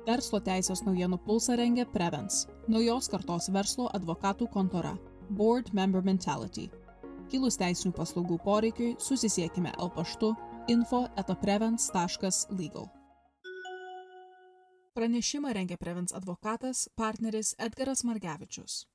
Verslo teisės naujienų pulsą rengia Prevens, naujos kartos verslo advokatų kontora, Board Member Mentality. Kilus teisinių paslaugų poreikiui, susisiekime paštu info@prevens.legal. Pranešimą rengia Prevens advokatas, partneris Edgaras Margevičius.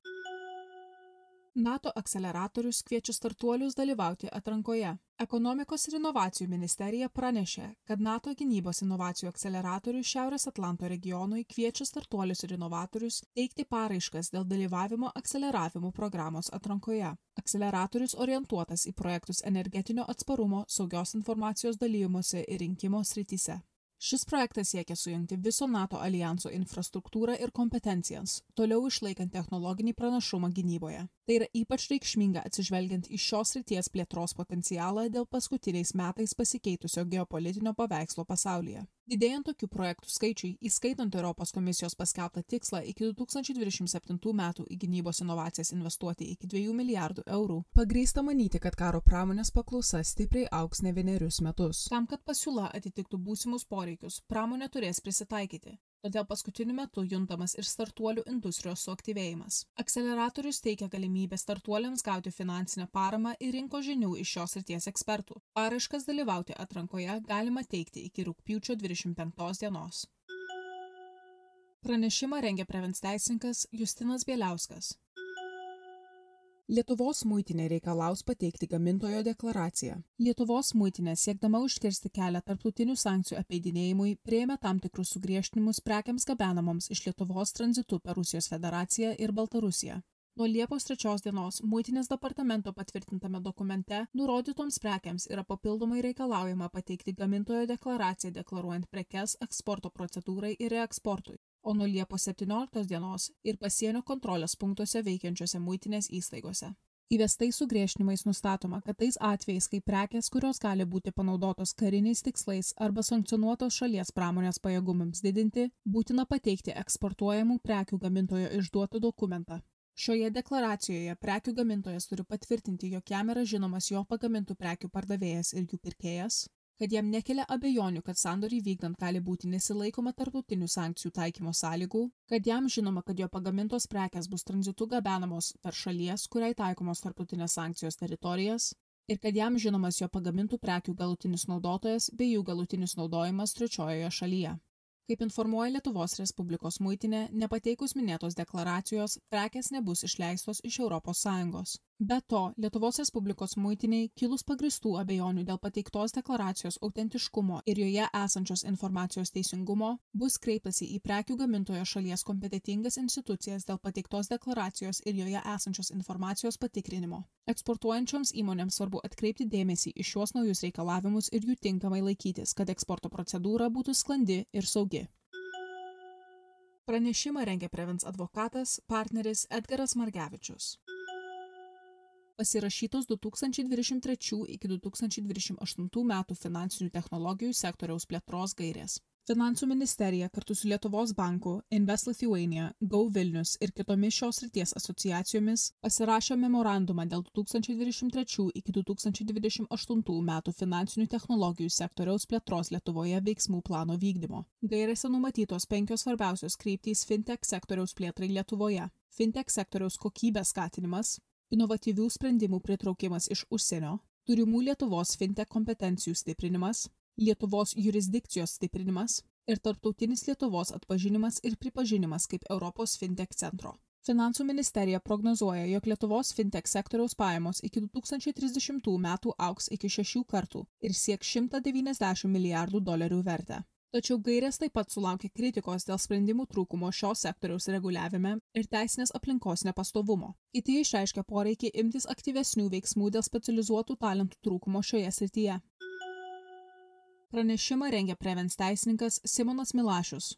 NATO akceleratorius kviečia startuolius dalyvauti atrankoje. Ekonomikos ir inovacijų ministerija pranešė, kad NATO gynybos inovacijų akceleratorius Šiaurės Atlanto regionui kviečia startuolius ir inovatorius teikti paraiškas dėl dalyvavimo akceleravimo programos atrankoje. Akceleratorius orientuotas į projektus energetinio atsparumo, saugios informacijos dalymosi ir rinkimo srityse. Šis projektas siekia sujungti viso NATO alijanso infrastruktūrą ir kompetencijas, toliau išlaikant technologinį pranašumą gynyboje. Tai yra ypač reikšminga atsižvelgiant į šios srities plėtros potencialą dėl paskutiniais metais pasikeitusio geopolitinio paveikslo pasaulyje. Didėjant tokių projektų skaičiui, įskaitant Europos komisijos paskelbtą tikslą iki 2027 metų į gynybos inovacijas investuoti iki 2 milijardų eurų, pagrįsta manyti, kad karo pramonės paklausa stipriai augs ne vienerius metus. Tam, kad pasiūla atitiktų būsimus poreikius, pramonė turės prisitaikyti. Todėl paskutiniu metu juntamas ir startuolių industrijos suaktyvėjimas. Akceleratorius teikia galimybę startuoliams gauti finansinę paramą ir rinkos žinių iš šios srities ekspertų. Paraiškas dalyvauti atrankoje galima teikti iki rugpjūčio 25 dienos. Pranešimą rengia Prevens teisininkas Justinas Bieliauskas. Lietuvos muitinė reikalaus pateikti gamintojo deklaraciją. Lietuvos muitinė, siekdama užkirsti kelią tarptautinių sankcijų apeidinėjimui, priėmė tam tikrus sugriežtinimus prekiams gabenamoms iš Lietuvos tranzitu per Rusijos federaciją ir Baltarusiją. Nuo Liepos 3 dienos muitinės departamento patvirtintame dokumente nurodytoms prekiams yra papildomai reikalaujama pateikti gamintojo deklaraciją deklaruojant prekes eksporto procedūrai ir reeksportui. O nuo Liepos 17 dienos ir pasienio kontrolės punktuose veikiančiose muitinės įstaigose. Įvestais sugriežtinimais nustatoma, kad tais atvejais, kai prekės, kurios gali būti panaudotos kariniais tikslais arba sankcionuotos šalies pramonės pajėgumams didinti, būtina pateikti eksportuojamų prekių gamintojo išduotą dokumentą. Šioje deklaracijoje prekių gamintojas turi patvirtinti, jog jam yra žinomas jo pagamintų prekių pardavėjas ir jų pirkėjas, kad jam nekelia abejonių, kad sandorį vykdant gali būti nesilaikoma tarptautinių sankcijų taikymo sąlygų, kad jam žinoma, kad jo pagamintos prekės bus tranzitu gabenamos per šalies, kuriai taikomos tarptautinės sankcijos teritorijas, ir kad jam žinomas jo pagamintų prekių galutinis naudotojas bei jų galutinis naudojimas trečiojoje šalyje. Kaip informuoja Lietuvos Respublikos muitinė, nepateikus minėtos deklaracijos, prekės nebus išleistos iš ES. Be to, Lietuvos Respublikos muitiniai kilus pagristų abejonių dėl pateiktos deklaracijos autentiškumo ir joje esančios informacijos teisingumo, bus kreiptasi į prekių gamintojo šalies kompetentingas institucijas dėl pateiktos deklaracijos ir joje esančios informacijos patikrinimo. Eksportuojančioms įmonėms svarbu atkreipti dėmesį į šiuos naujus reikalavimus ir jų tinkamai laikytis, kad eksporto procedūra būtų sklandi ir saugi. Pranešimą rengia Prevens advokatas, partneris Edgaras Margevičius. Pasirašytos 2023 iki 2028 metų finansinių technologijų sektoriaus plėtros gairės. Finansų ministerija kartu su Lietuvos banku, Invest Lithuania, Go Vilnius ir kitomis šios srities asociacijomis pasirašė memorandumą dėl 2023 iki 2028 metų finansinių technologijų sektoriaus plėtros Lietuvoje veiksmų plano vykdymo. Gairėse numatytos 5 svarbiausios kryptys fintech sektoriaus plėtrai Lietuvoje. Fintech sektoriaus kokybės skatinimas, inovatyvių sprendimų pritraukimas iš užsienio, turimų Lietuvos fintech kompetencijų stiprinimas, Lietuvos jurisdikcijos stiprinimas ir tarptautinis Lietuvos atpažinimas ir pripažinimas kaip Europos fintech centro. Finansų ministerija prognozuoja, jog Lietuvos fintech sektoriaus pajamos iki 2030 metų augs iki 6 kartų ir sieks $190 milijardų vertę. Tačiau gairės taip pat sulaukė kritikos dėl sprendimų trūkumo šios sektoriaus reguliavime ir teisinės aplinkos nepastovumo. Kiti išreiškė poreikį imtis aktyvesnių veiksmų dėl specializuotų talentų trūkumo šioje srityje. Pranešimą rengia Prevens teisininkas Simonas Milašius.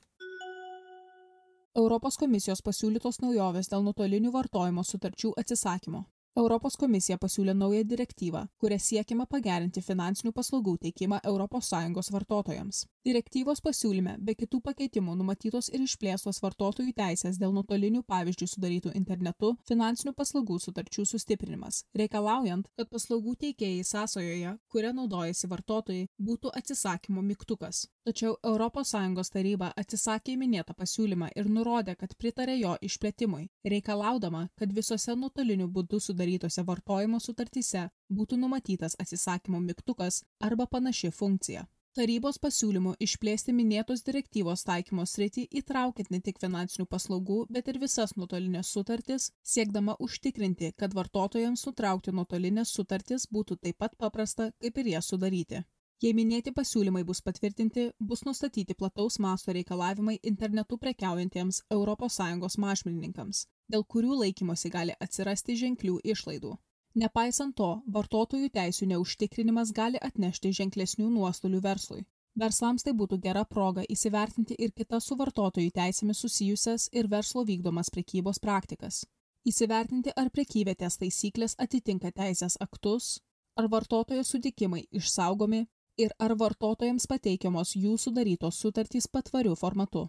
Europos komisijos pasiūlytos naujovės dėl nuotolinių vartojimo sutarčių atsisakymo. Europos komisija pasiūlė naują direktyvą, kuria siekiama pagerinti finansinių paslaugų teikimą ES vartotojams. Direktyvos pasiūlyme be kitų pakeitimų numatytos ir išplėstos vartotojų teisės dėl nuotolinių pavyzdžiui sudarytų internetu finansinių paslaugų sutarčių sustiprinimas, reikalaujant, kad paslaugų teikėjai sąsajoje, kuria naudojasi vartotojai, būtų atsisakymo mygtukas. Tačiau ES taryba atsisakė minėtą pasiūlymą ir nurodė, kad pritarė jo išplėtimui, reikalaudama, kad visose nuotoliniu būdu sudarytose vartojimo sutartyse būtų numatytas atsisakymo mygtukas arba panaši funkcija. Tarybos pasiūlymų išplėsti minėtos direktyvos taikymo sritį įtraukiant ne tik finansinių paslaugų, bet ir visas nuotolinės sutartis, siekdama užtikrinti, kad vartotojams nutraukti nuotolinės sutartis būtų taip pat paprasta, kaip ir jas sudaryti. Jei minėti pasiūlymai bus patvirtinti, bus nustatyti plataus masto reikalavimai internetu prekiaujantiems ES mažmenininkams, dėl kurių laikymosi gali atsirasti ženklių išlaidų. Nepaisant to, vartotojų teisių neužtikrinimas gali atnešti ženklesnių nuostolių verslui. Verslams tai būtų gera proga įsivertinti ir kitas su vartotojų teisėmis susijusias ir verslo vykdomas prekybos praktikas. Įsivertinti, ar prekyvietės taisyklės atitinka teisės aktus, ar vartotojo sutikimai išsaugomi ir ar vartotojams pateikiamos jų sudarytos sutartys patvariu formatu.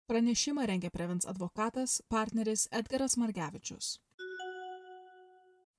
Pranešimą rengė Prevens advokatas, partneris Edgaras Margevičius.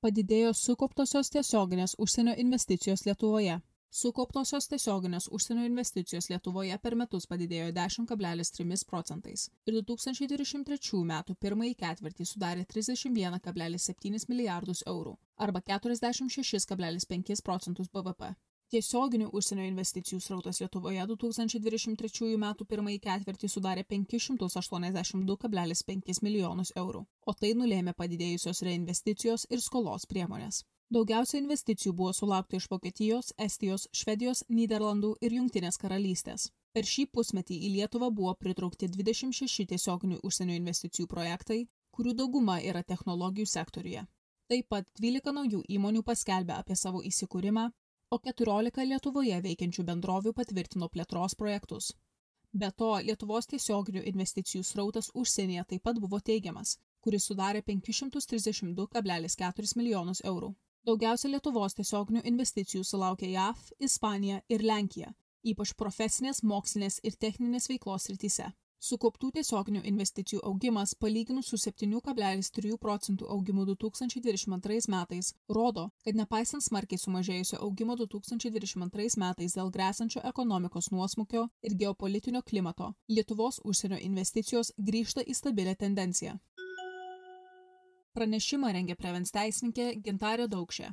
Padidėjo sukauptosios tiesioginės užsienio investicijos Lietuvoje. Sukauptosios tiesioginės užsienio investicijos Lietuvoje per metus padidėjo 10,3% ir 2023 metų pirmąjį ketvirtį sudarė 31,7 milijardus eurų arba 46,5% BVP. Tiesioginių užsienio investicijų srautas Lietuvoje 2023 metų pirmąjį ketvirtį sudarė 582,5 milijonus eurų, o tai nulėmė padidėjusios reinvesticijos ir skolos priemonės. Daugiausia investicijų buvo sulaukta iš Vokietijos, Estijos, Švedijos, Nyderlandų ir Jungtinės karalystės. Per šį pusmetį į Lietuvą buvo pritraukti 26 tiesioginių užsienio investicijų projektai, kurių dauguma yra technologijų sektoriuje. Taip pat 12 naujų įmonių paskelbė apie savo įsikūrimą, o 14 Lietuvoje veikiančių bendrovių patvirtino plėtros projektus. Be to, Lietuvos tiesioginių investicijų srautas užsienyje taip pat buvo teigiamas, kuris sudarė 532,4 milijonus eurų. Daugiausia Lietuvos tiesioginių investicijų sulaukė JAV, Ispanija ir Lenkija, ypač profesinės, mokslinės ir techninės veiklos srityse. Sukauptų tiesioginių investicijų augimas, palyginus su 7,3% augimu 2022 metais, rodo, kad nepaisant smarkiai sumažėjusio augimo 2022 metais dėl grėsančio ekonomikos nuosmukio ir geopolitinio klimato, Lietuvos užsienio investicijos grįžta į stabilę tendenciją. Pranešimą rengė Prevens teisininkė Gintarė Daukšė.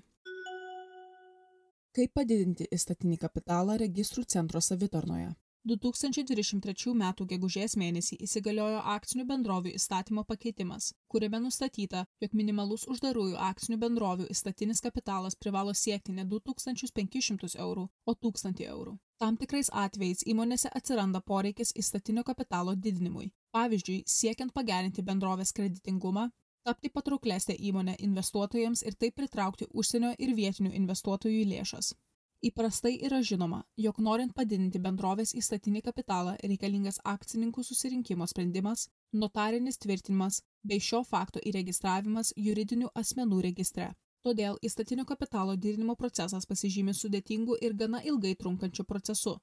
Kaip padidinti įstatinį kapitalą registrų centro savitarnoje? 2023 m. gegužės mėnesį įsigaliojo akcinių bendrovių įstatymo pakeitimas, kuriame nustatyta, jog minimalus uždarųjų akcinių bendrovių įstatinis kapitalas privalo siekti ne 2500 eurų, o 1000 eurų. Tam tikrais atvejais įmonėse atsiranda poreikis įstatinio kapitalo didinimui. Pavyzdžiui, siekiant pagerinti bendrovės kreditingumą, tapti patrauklesnę įmonę investuotojams ir taip pritraukti užsienio ir vietinių investuotojų lėšas. Įprastai yra žinoma, jog norint padidinti bendrovės įstatinį kapitalą reikalingas akcininkų susirinkimo sprendimas, notarinis tvirtinimas bei šio fakto įregistravimas juridinių asmenų registre. Todėl įstatinio kapitalo didinimo procesas pasižymi sudėtingu ir gana ilgai trunkančiu procesu.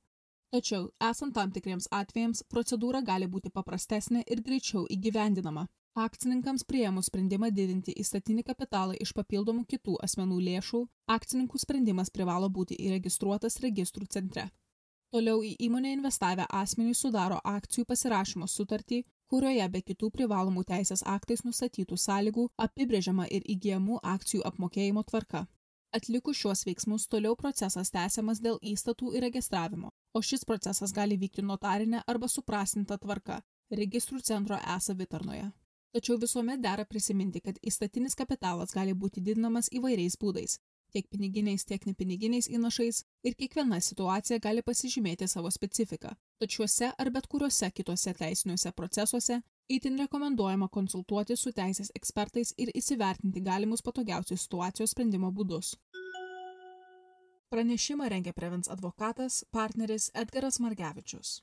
Tačiau, esant tam tikriems atvejams, procedūra gali būti paprastesnė ir greičiau įgyvendinama. Akcininkams priėmus sprendimą didinti įstatinį kapitalą iš papildomų kitų asmenų lėšų, akcininkų sprendimas privalo būti įregistruotas registrų centre. Toliau į įmonę investavę asmenys sudaro akcijų pasirašymo sutartį, kurioje be kitų privalomų teisės aktais nustatytų sąlygų apibrėžiama ir įgyjamų akcijų apmokėjimo tvarka. Atlikus šiuos veiksmus toliau procesas tęsiamas dėl įstatų įregistravimo, o šis procesas gali vykti notarinė arba suprastinta tvarka registrų centro e-savitarnoje. Tačiau visuomet dera prisiminti, kad įstatinis kapitalas gali būti didinamas įvairiais būdais, tiek piniginiais, tiek nepiniginiais įnašais ir kiekviena situacija gali pasižymėti savo specifiką. Tačiau šiuose ar bet kuriuose kitose teisiniuose procesuose itin rekomenduojama konsultuoti su teisės ekspertais ir įsivertinti galimus patogiausius situacijos sprendimo būdus. Pranešimą rengė Prevens advokatas, partneris Edgaras Margevičius.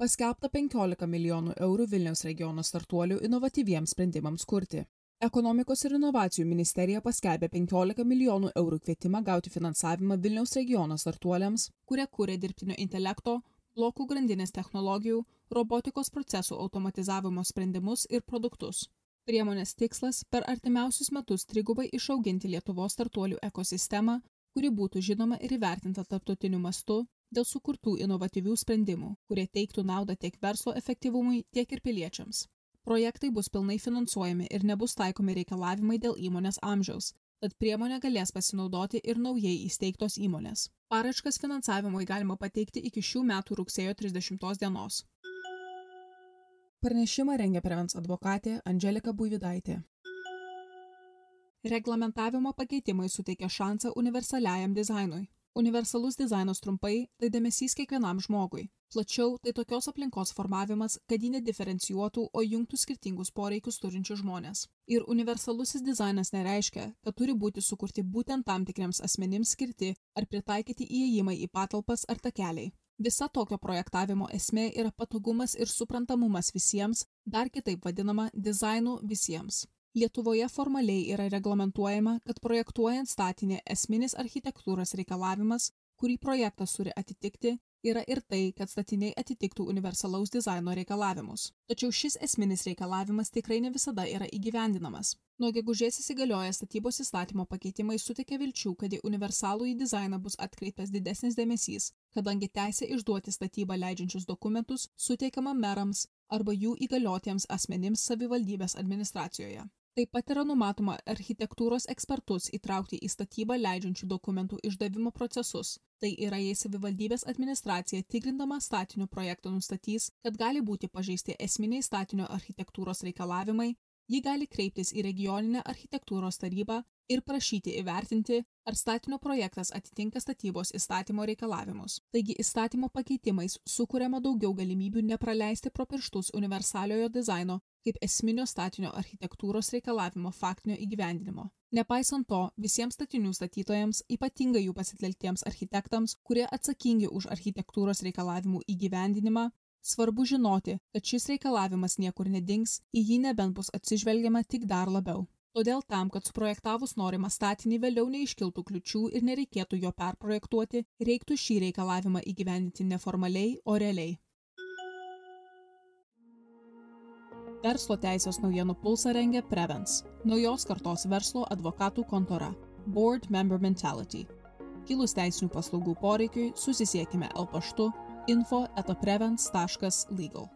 Paskelbta 15 milijonų eurų Vilniaus regiono startuolių inovatyviems sprendimams kurti. Ekonomikos ir inovacijų ministerija paskelbė 15 milijonų eurų kvietimą gauti finansavimą Vilniaus regiono startuoliams, kurie kūrė dirbtinio intelekto, blokų grandinės technologijų, robotikos procesų automatizavimo sprendimus ir produktus. Priemonės tikslas per artimiausius metus trigubai išauginti Lietuvos startuolių ekosistemą, kuri būtų žinoma ir įvertinta tarptautiniu mastu dėl sukurtų inovatyvių sprendimų, kurie teiktų naudą tiek verslo efektyvumui, tiek ir piliečiams. Projektai bus pilnai finansuojami ir nebus taikomi reikalavimai dėl įmonės amžiaus, tad priemonę galės pasinaudoti ir naujai įsteigtos įmonės. Paraiškas finansavimui galima pateikti iki šių metų rugsėjo 30 dienos. Pranešimą rengia Prevens advokatė Andželika Buivydaitė. Reglamentavimo pakeitimai suteikia šansą universaliajam dizainui. Universalus dizainas trumpai – tai dėmesys kiekvienam žmogui. Plačiau – tai tokios aplinkos formavimas, kad jį nediferencijuotų, o jungtų skirtingus poreikius turinčius žmonės. Ir universalusis dizainas nereiškia, kad turi būti sukurti būtent tam tikriems asmenims skirti ar pritaikyti įėjimai į patalpas ar takeliai. Visa tokio projektavimo esmė yra patogumas ir suprantamumas visiems, dar kitaip vadinama dizainu visiems. Lietuvoje formaliai yra reglamentuojama, kad projektuojant statinį esminis architektūros reikalavimas, kurį projektas turi atitikti, yra ir tai, kad statiniai atitiktų universalaus dizaino reikalavimus. Tačiau šis esminis reikalavimas tikrai ne visada yra įgyvendinamas. Nuo gegužės įsigalioję statybos įstatymo pakeitimai suteikia vilčių, kad į universalųjį dizainą bus atkreiptas didesnis dėmesys, kadangi teisė išduoti statybą leidžiančius dokumentus suteikiama merams arba jų įgaliotiems asmenims savivaldybės administracijoje. Taip pat yra numatoma architektūros ekspertus įtraukti į statybą leidžiančių dokumentų išdavimo procesus. Tai yra, jei savivaldybės administracija tikrindama statinio projektą nustatys, kad gali būti pažeisti esminiai statinio architektūros reikalavimai, ji gali kreiptis į regioninę architektūros tarybą ir prašyti įvertinti, ar statinio projektas atitinka statybos įstatymo reikalavimus. Taigi įstatymo pakeitimais sukuriama daugiau galimybių nepraleisti pro pirštus universaliojo dizaino kaip esminio statinio architektūros reikalavimo faktinio įgyvendinimo. Nepaisant to, visiems statinių statytojams, ypatingai jų pasitelktiems architektams, kurie atsakingi už architektūros reikalavimų įgyvendinimą, svarbu žinoti, kad šis reikalavimas niekur nedings, į jį nebent bus atsižvelgiama tik dar labiau. Todėl tam, kad suprojektavus norimą statinį vėliau neiškiltų kliučių ir nereikėtų jo perprojektuoti, reiktų šį reikalavimą įgyvendinti neformaliai, o realiai. Verslo teisės naujienų pulsą rengia Prevens, naujos kartos verslo advokatų kontora, Board Member Mentality. Kilus teisinių paslaugų poreikiui susisiekime paštu info@prevens.legal.